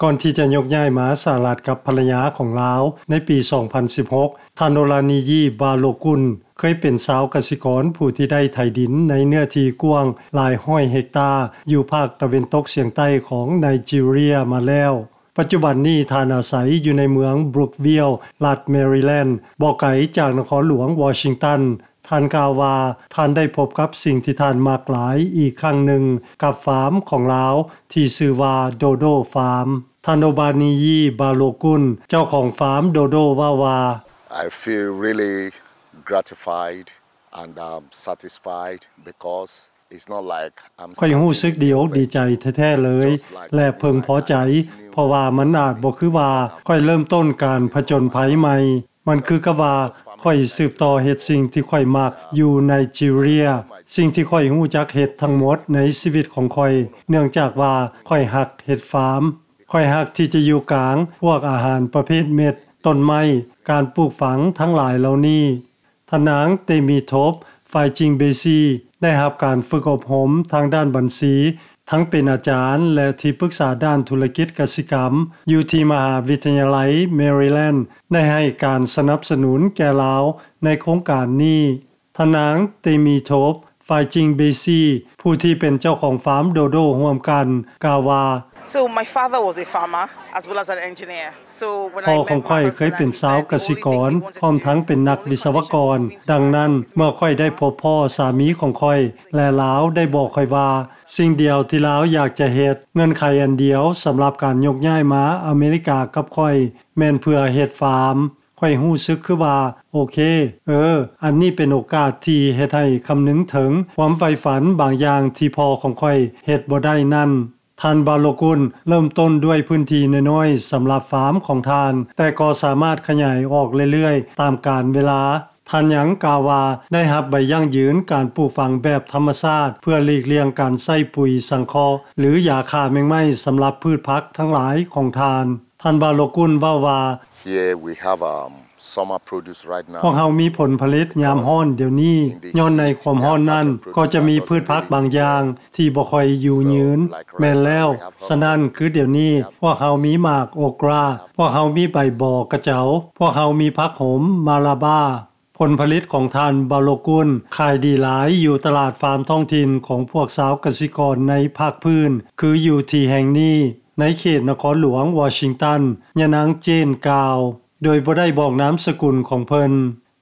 ກ່ອນທີ່ຈະຍົກຍ້າຍມາສະຫະລັດກັບພັນລະຍາຂອງລາວໃນປີສອງພັນສິບຫົກ, ທ່ານໂອລານີຢີ ບາໂລກຸນ ເຄີຍເປັນຊາວກະສິກອນຜູ້ທີ່ໄດ້ໄຖດິນໃນເນື້ອທີ່ກວ້າງຫຼາຍຮ້ອຍເຮັກຕາ ຢູ່ພາກຕາເວັນຕົກສຽງໃຕ້ຂອງໄນຈີເຣຍມາແລ້ວ. ປັດຈຸບັນນີ້ທ່ານອາໄສຢູ່ໃນເມືອງບຣູກວິລ ລັດແມຣີແລນ ບໍ່ໄກຈາກນະຄອນຫຼວງວໍຊິງຕັນ. ທ່ານກ່າວວ່າ ທ່ານໄດ້ພົບກັບສິ່ງທີ່ທ່ານມັກຫຼາຍອີກຄັ້ງໜຶ່ງກັບຟາມຂອງລາວທີ່ຊື່ວ່າ Dodo Farm. ທ່ານໂອບານີຢີ ບາໂລກຸນ ເຈົ້າຂອງຟາມ Dodo ເວົ້າວ່າ, I feel really gratified and um, satisfied because it's not like I'm ຂ້ອຍຮູ້ສຶກດີອົກດີໃຈແທ້ໆເລີຍ ແລະເພິ່ງພໍໃຈ ເພາະວ່າມັນອາດບໍ່ຄືວ່າຂ້ອຍເລີ່ມຕົ້ນການຜະຈົນໄພໃໝ່. ມັນຄືກັບວ່າຂ້ອຍສືບຕໍ່ເຮັດສິ່ງທີ່ຂ້ອຍມັກຢູ່ໄນຈີເຣຍ, ສິ່ງທີ່ຂ້ອຍຮູ້ຈັກເຮັດທັງໝົດໃນຊີວິດຂອງຂ້ອຍ ເນື່ອງຈາກວ່າຂ້ອຍຮັກເຮັດຟາມ. ຂ້ອຍຮັກທີ່ຈະຢູ່ກາງພວກອາຫານປະເພດເມັດ, ຕົ້ນໄມ້, ການປູກຝັງທັງຫຼາຍເຫຼົ່ານີ້. ທ່ານນາງ ເຕມີໂທບ ຟາຍຈິງເບຊີ ໄດ້ຮັບການຝຶກອົບຮົມທາງດ້ານບັນຊີ, ທັງເປັນອາຈານ ແລະ ທີ່ປຶກສາດ້ານທຸລະກິດກະສິກຳ ຢູ່ທີ່ມະຫາວິທະຍາໄລແມຣີແລນ ໄດ້ໃຫ້ການສະໜັບສະໜູນແກ່ລາວໃນໂຄງການນີ້. ທ່ານນາງ ເຕມີໂທບ ຟາຍຈິງເບຊີ ຜູ້ທີ່ເປັນເຈົ້າຂອງຟາມໂດໂດຮ່ວມກັນ ກ່າວວ່າ, So my father was a farmer as well as an engineer. So when ພໍ່ຂອງຂ້ອຍເຄີຍເປັນຊາວກະສິກອນ ພ້ອມທັງເປັນນັກວິສະວະກອນ. ດັ່ງນັ້ນ ເມື່ອຂ້ອຍໄດ້ພົບພໍ້ສາມີຂອງຂ້ອຍ ແລະລາວໄດ້ບອກຂ້ອຍວ່າ ສິ່ງດຽວທີ່ລາວຢາກຈະເຮັດ, ເງື່ອນໄຂອັນດຽວສຳລັບການຍົກຍ້າຍມາອາເມລິກາກັບຂ້ອຍ ແມ່ນເພື່ອເຮັດຟາມ. ຂ້ອຍຮູ້ສຶກຄືວ່າ ໂອເຄ, ເອີ, ອັນນີ້ເປັນໂອກາດທີ່ເຮັດໃຫ້ຄຳນຶງເຖິງຄວາມໃຝ່ຝັນບາງຢ່າງທີ່ພໍ່ຂອງຂ້ອຍເຮັດບໍ່ໄດ້ນັ້ນ. ທ່ານ ບາໂລກຸນ ເລີ່ມຕົ້ນດ້ວຍພື້ນທີ່ນ້ອຍໆສຳລັບຟາມຂອງທ່ານ, ແຕ່ກໍສາມາດຂະຫຍາຍອອກເລື້ອຍໆຕາມການເວລາ. ທ່ານຍັງກ່າວວ່າ ໄດ້ຮັບໃບຢັ້ງຢືນການປູກຝັງແບບທຳມະຊາດ ເພື່ອຫຼີກລ່ຽງການໃຊ້ປຸຍສັງເຄາະ ຫຼື ຢາຂ້າແມງໄມ້ສຳລັບພືດຜັກທັງຫຼາຍຂອງທ່ານ. ທ່ານ ບາໂລກຸນ ເວົ້າວ່າ, Here we have um, summer produce right now. ພວກເຮົາມີຜົນຜະລິດຍາມຮ້ອນດຽວນີ້. ຍ້ອນໃນຄວາມຮ້ອນນັ້ນ ກໍຈະມີພືດຜັກບາງຢ່າງທີ່ບໍ່ຄ່ອຍຢູ່ຍືນ. ແມ່ນແລ້ວ. ສະນັ້ນ ຄືດຽວນີ້ ພວກເຮົາມີໝາກໂອກຣາ, ພວກເຮົາມີໃບບໍກະເຈົ້າ, ພວກເຮົາມີຜັກໂຫມມາລາບາ. ຜົນຜະລິດຂອງທ່ານ ບາໂລກຸນ ຂາຍດີຫຼາຍຢູ່ຕະຫຼາດຟາມທ້ອງຖິ່ນຂອງພວກຊາວກະສິກອນໃນພາກພື້ນ ຄືຢູ່ທີ່ແຫ່ງນີ້ ໃນເຂດນະຄອນຫຼວງວໍຊິງຕັນ, ຍານາງ ເຈນ ກ່າວ, ໂດຍບໍ່ໄດ້ບອກນາມສະກຸນຂອງເພິ່ນ.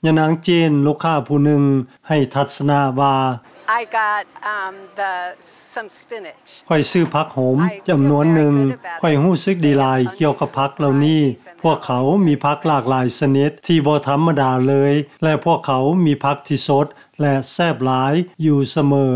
ຍານາງ ເຈນ ລູກຄ້າຜູ້ໜຶ່ງ ໃຫ້ທັດສະນະວ່າ, I got um, the, some spinach. ຂ້ອຍຊື້ຜັກໂຫມຈຳນວນໜຶ່ງ. ຂ້ອຍຮູ້ສຶກດີຫຼາຍກ່ຽວກັບຜັກເຫຼົ່ານີ້. ພວກເຂົາມີຜັກຫຼາກຫຼາຍຊະນິດທີ່ບໍ່ທຳມະດາເລີຍ ແລະ ພວກເຂົາມີຜັກທີ່ສົດ ແລະ ແຊບຫຼາຍຢູ່ສະເໝີ.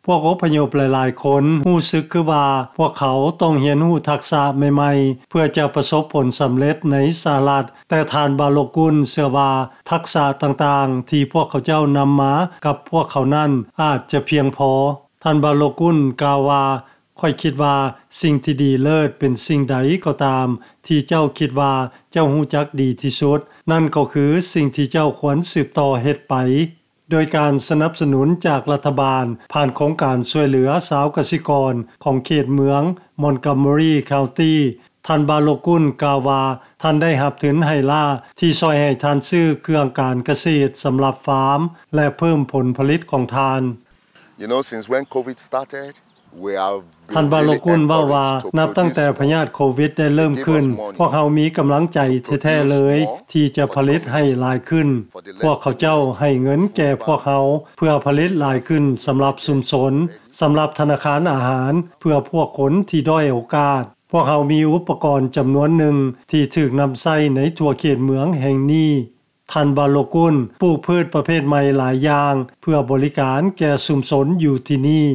ພວກອົບພະຍົບຫຼາຍໆຄົນຮູ້ສຶກຄືວ່າ ພວກເຂົາຕ້ອງຮຽນຮູ້ທັກສະໃໝ່ໆ ເພື່ອຈະປະສົບຜົນສຳເລັດໃນສະຫະລັດ, ແຕ່ທ່ານ ບາໂລກຸນ ເຊື່ອວ່າ ທັກສະຕ່າງໆທີ່ພວກເຂົາເຈົ້ານຳມາກັບພວກເຂົານັ້ນ ອາດຈະພຽງພໍ. ທ່ານ ບາໂລກຸນ ກ່າວວ່າ, ຂ້ອຍຄິດວ່າສິ່ງທີ່ດີເລີດເປັນສິ່ງໃດກໍຕາມທີ່ເຈົ້າຄິດວ່າເຈົ້າຮູ້ຈັກດີທີ່ສຸດ, ນັ້ນກໍຄືສິ່ງທີ່ເຈົ້າຄວນສືບຕໍ່ເຮັດໄປ. ໂດຍການສະໜັບສະໜູນຈາກລັດຖະບານ ຜ່ານໂຄງການຊ່ວຍເຫຼືອຊາວກະສິກອນຂອງເຂດເມືອງ Montgomery County, ທ່ານ ບາໂລກຸນ ກ່າວວ່າ ທ່ານໄດ້ຮັບທຶນໄຮ່ລ້າທີ່ຊ່ອຍໃຫ້ທ່ານຊື້ເຄື່ອງການກະເສດສຳລັບຟາມ ແລະ ເພີ່ມຜົນຜະລິດຂອງທ່ານ. You know, since when COVID started, we have ທ່ານ ບາໂລກຸນ ເວົ້າວ່າ ນັບຕັ້ງແຕ່ພະຍາດໂຄວິດໄດ້ເລີ່ມຂຶ້ນ, ພວກເຮົາມີກຳລັງໃຈແທ້ໆເລີຍທີ່ຈະຜະລິດໃຫ້ຫຼາຍຂຶ້ນ. ພວກເຂົາເຈົ້າໃຫ້ເງິນແກ່ພວກເຮົາເພື່ອຜະລິດຫຼາຍຂຶ້ນສຳລັບຊຸມຊົນ, ສຳລັບທະນາຄານອາຫານເພື່ອພວກຄົນທີ່ດ້ອຍໂອກາດ. ພວກເຮົາມີອຸປະກອນຈຳນວນໜຶ່ງທີ່ຖືກນຳໃຊ້ໃນທົ່ວເຂດເມືອງແຫ່ງນີ້. ທ່ານ ບາໂລກຸນ ປູກພືດປະເພດໃໝ່ຫຼາຍຢ່າງເພື່ອບໍລິການແກ່ຊຸມຊົນຢູ່ທີ່ນີ້.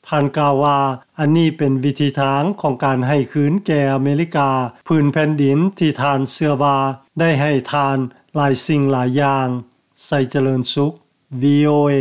ທ່ານກ່າວວ່າ ອັນນີ້ເປັນວິທີທາງຂອງການໃຫ້ຄືນແກ່ອາເມລິກາ ພື້ນແຜ່ນດິນທີ່ທ່ານເຊື່ອວ່າໄດ້ໃຫ້ທ່ານຫຼາຍສິ່ງຫຼາຍຢ່າງ. ໄຊຈະເລີນສຸກ VOA.